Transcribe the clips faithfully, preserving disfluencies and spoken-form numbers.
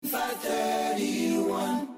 five thirty-one.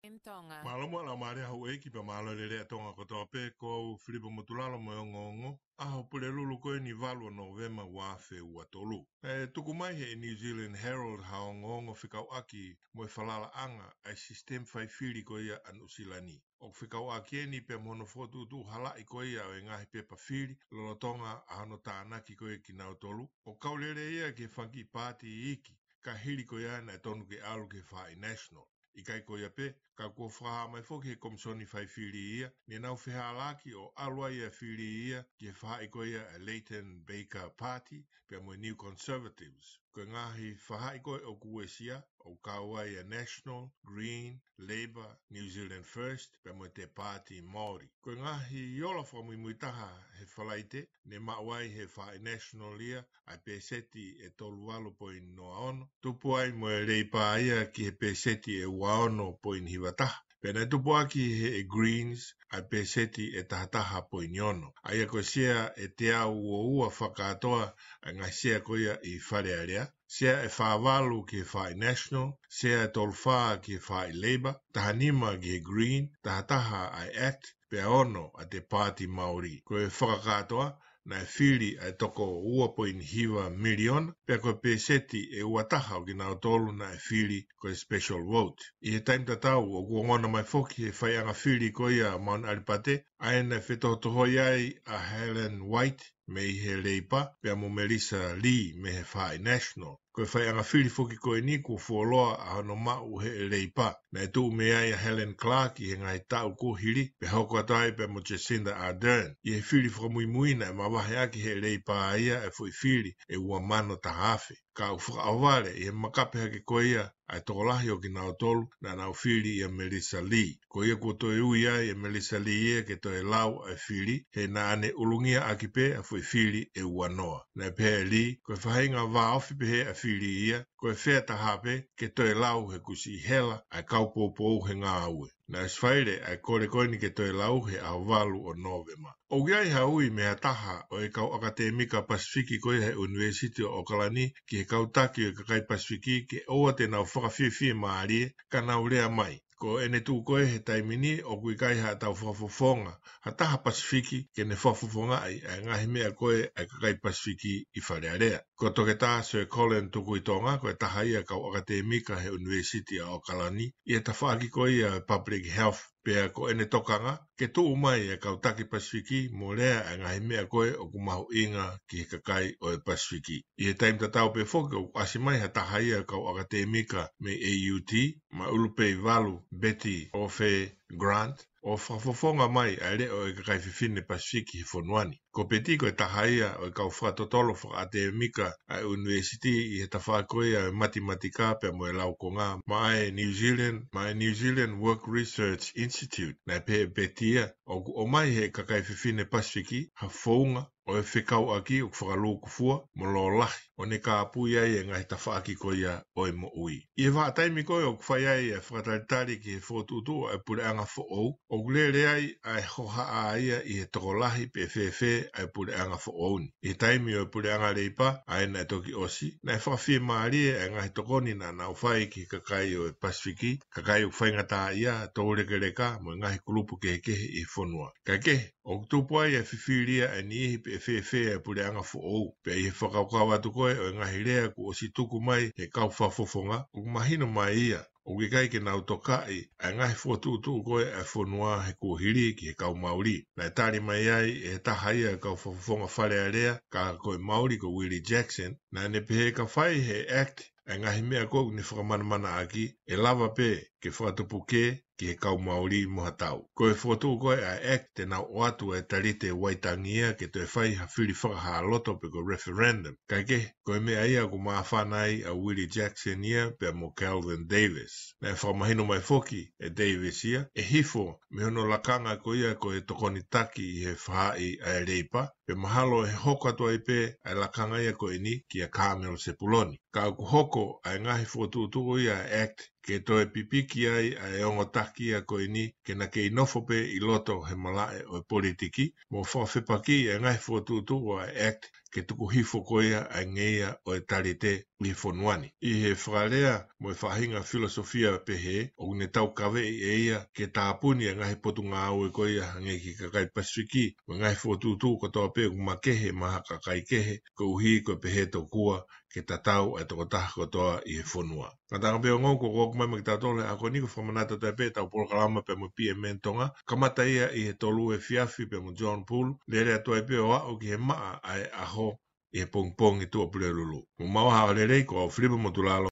M Tonga. Mālō mo e laumālie ʻa houʻeiki pea mālō e lelei ʻa Tonga kotoa pē, ko au Filipa Motulalo mo e ongoongo, ʻaho Pulelulu ko eni valu ʻo Nōvema ua afe ua tolu. ʻE tuku mai he New Zealand Herald ha ongoongo fekauʻaki mo e falalaʻanga ʻa e sisitemi faifili ko ia ʻa Nuʻusila ni. ʻOku fekauʻaki eni pea mo hono fokotuʻutuʻu halaʻi ko ia ʻo e ngaahi pepa fili lolotonga ʻa hono tānaki ko ia kinautolu. ʻOku kau lelei ia ki he fanga kiʻi paati iiki, ka hili ko ia naʻe tonu ke ʻalu ki he faʻahi National. ʻIkai ko ia pē, ka kuo fakahā mai foki he Komisoni Faifili ia, ne nau fehālaaki ʻo ʻalu ai ʻa e fili ia ki he faʻahi ko ia ʻa e Leighton Baker Party, pea mo e New Conservatives. Ko e ngaahi faʻahi ko ē ʻoku uesia, ʻoku kau ai ʻa e National, Green, Labour, New Zealand First, pea mo e Te Paati Māori. Ko e ngaahi ola fakamuimui taha he Falaite, ne maʻu ai he faʻahi National ia ʻa e peseti ʻe tolu valu poini noa ono, tupu ai mo e Leipa ia ki he peseti ʻe ua ono poini hiva taha. Pea naʻe tupu ʻaki he Greens ʻa e peseti ʻe taha taha poini ono. ʻA ia ko e sea ʻe teau ua ua fakakātoa ʻa e ngaahi sea ko ia ʻi Fale Alea. Sea ʻe fā valu ki he faʻahi National, sea ʻe tolu fā ki he faʻahi Labour, taha nima ki he Green, taha taha ʻa e act, pea ono ʻa e Te Paati Māori. Ko e fakakātoa, naʻe fili ʻa e toko ua poini hiva miliona, pea ko e peseti ʻe ua taha ʻo kinautolu naʻe fili ko e special vote. ʻI he taimi tatau, ʻoku ongona mai foki he faiʻanga fili ko ia ʻa Mount ʻAlipate, ʻa ia naʻe fetohotohoi ai ʻa Helen White mei he Leipa, pea mo Melissa Lee mei he faʻahi National. Ko e faiʻanga fili foki ko eni kuo fuoloa ʻa hono maʻu he Leipa. Naʻe tuʻu mei ai ʻa Helen Clark ʻi he ngaahi taʻu kuo hili, pea hoko atu ai pea mo Jacinda Ardern. ʻI he fili fakamuimui naʻe mavahe ʻaki he Leipa ia ʻa e foʻi fili ʻe ua mano taha afe. Ka ʻoku fakaʻohovale ʻi he makape hake ko ia ʻa e tokolahi ʻo kinautolu naʻa nau fili ʻia Melissa Lee. Ko ia kuo toe ui ai ʻe Melissa Lee ia ke toe lau ʻa e fili, he naʻa ne ʻulungia ʻaki pē ʻa e foʻi fili ʻe ua noa. Naʻe pehē ʻe Lee, ko e faʻahinga vāofi pehē ʻa e fili ia, ko e fair taha pē ke toe lau he kuo siʻi hela ʻa e kau poupou he ngāue. Naʻe ʻosi faile ʻa e kole ko eni ke toe lau he ʻaho valu ʻo Nōvema. ʻOku ʻi ai ha ui mei ha taha ʻo e kau ʻakatēmika Pasifiki ko ia he ʻUnivēsiti ʻo ʻOkalani ki he kau taki ʻo e kakai Pasifiki ke ʻoua te nau fakafiefia mālie ka nau lea mai. Ko ʻene tuʻu ko ē he taimi ni ʻoku ʻikai haʻatau fakafofonga ha taha Pasifiki ke ne fakafofongaʻi ʻa e ngaahi meʻa ko ē ʻa e kakai Pasifiki ʻi Fale Alea. Ko Toketā Sir Colin Tukuitonga, ko e taha ia kau ʻakatēmika he ʻUnivēsiti ʻa ʻOkalani, ʻi he tafaʻaki ko ia ʻo e Public Health, pea ko ʻene tokanga ke tuʻu mai e kau taki Pasifiki mo lea e ngaahi meʻa ko ē ʻoku mahuʻinga ki he kakai ʻo e Pasifiki. ʻI he taimi tatau pē foki ʻoku ʻasi mai ha taha ia kau ʻakatēmika mei A U T, Maʻulupeivalu, Betty Ofe Grant, ʻo fakafofonga mai ʻa e leʻo ʻo e kakai fefine Pasifiki he fonua ni. Ko Betty ko e taha ia ʻo e kau fakatotolo fakaʻakadēmika ʻa e ʻunivēsiti ʻi he tafaʻaki ko ia ʻo e matematika pea mo e laukonga maʻa e New Zealand, maʻa e New Zealand Work Research Institute. Naʻe pehē ʻe Betty ia, ʻoku ʻomai ʻe he kakai fefine Pasifiki ha founga ʻo e fekauʻaki ʻoku fakalūkufua mo lōlahi, ʻo ne kāpui ai e ngaahi tafaʻaki ko ia ʻo e moʻui. ʻI he vahaʻa taimi ko ē ʻoku fai ai e fakatalitali ki he fokotuʻutuʻu ʻa e puleʻanga foʻou, ʻoku lele ai ʻa e hohaʻa ia ʻi he tokolahi pe fēfē ʻa e puleʻanga foʻou ni. ʻI he taimi ʻo e puleʻanga Leipa, ʻa ia naʻe toki ʻosi, naʻe fakafiemālie ʻa e ngaahi tokoni naʻa nau fai ki he kakai ʻo e Pasifiki, kakai ʻoku faingataʻaʻia, toulekeleka, mo e ngaahi kulupu kehekehe ʻi he fonua. Kaekehe, ʻoku tupu ai e fifili ʻa e niʻihi pe fēfē ʻa e puleʻanga foʻou, pea ʻi he fakakaukau atu ko ē ʻo e ngaahi lea kuo ʻosi tuku mai ʻe he kau fakafofonga, ʻoku mahino mai ia ʻoku ʻikai ke nau tokaʻi ʻa e ngaahi fokotuʻutuʻu ko ē ʻa e fonua he kuohili ki he kau Mauli. Naʻe tali mai ai ʻe he taha ia e kau fakafofonga Fale Alea, ka ko e Mauli ko Willie Jackson, naʻa ne pehē ka fai ʻe he act ʻa e ngaahi meʻa ko ē ʻoku ne fakamanamanaʻaki, ʻe lava pē ke fakatupu kē ki he kau Mauli mo ha tau. Ko e fokotuʻu ko ē ʻa e act te nau ʻoatu e talite Waitangi ia ke toe fai ha fili fakahā loto pe ko e referendum. Kaekehe, ko e meʻa ia ʻoku māfana ai ʻa Willie Jackson ia pea mo Kelvin Davis. Naʻe fakamahino mai foki ʻe Davis ia, ʻe hifo mei hono lakanga ko ia ko e tokoni taki ʻi he faʻahi ʻa e Leipa, pea mahalo ʻe hoko atu ai pē ʻa e lakanga ia ko eni kia Carmel Sepuloni. Ka ʻoku hoko ʻa e ngaahi fokotuʻutuʻu ia ʻa e act ke toe pipiki ai ʻa e ongo taki ia ko eni ke na kei nofo pē ʻi loto he malaʻe ʻo e politiki, mo fakafepakiʻi ʻa e ngaahi fokotuʻutuʻu ʻa e act ke tuku hifo ko ia ʻa e ngeia ʻo e talite ʻi he fonua ni. ʻI he fakalea mo e faʻahinga filosofia pehē, ʻoku ne taukaveʻi ʻe ia ke tāpuni e ngaahi potungāue ko ia hangē ki he kakai Pasifiki, mo e ngaahi fokotuʻutuʻu kotoa pē ʻoku makehe maʻa ha kakai kehe, koeʻuhi ko e pehē tokua ke tatau ʻa e tokotaha kotoa ʻi he fonua. Ngataʻanga pē ongo, ko ʻoku ʻomai maʻa kitautolu he ʻaho ni ko e fakamanatu atu ai pē ʻetau polokalama pea mo e P M N Tonga, kamata ia ʻi he tolu efiafi pea mo John Poole, lele atu ai pē ʻo aʻu ki he maʻa ʻa e ʻaho ʻi he pongipongi Tuʻapulelulu. Mou maʻu ha ʻaho lelei, ko au Filipa Motulalo.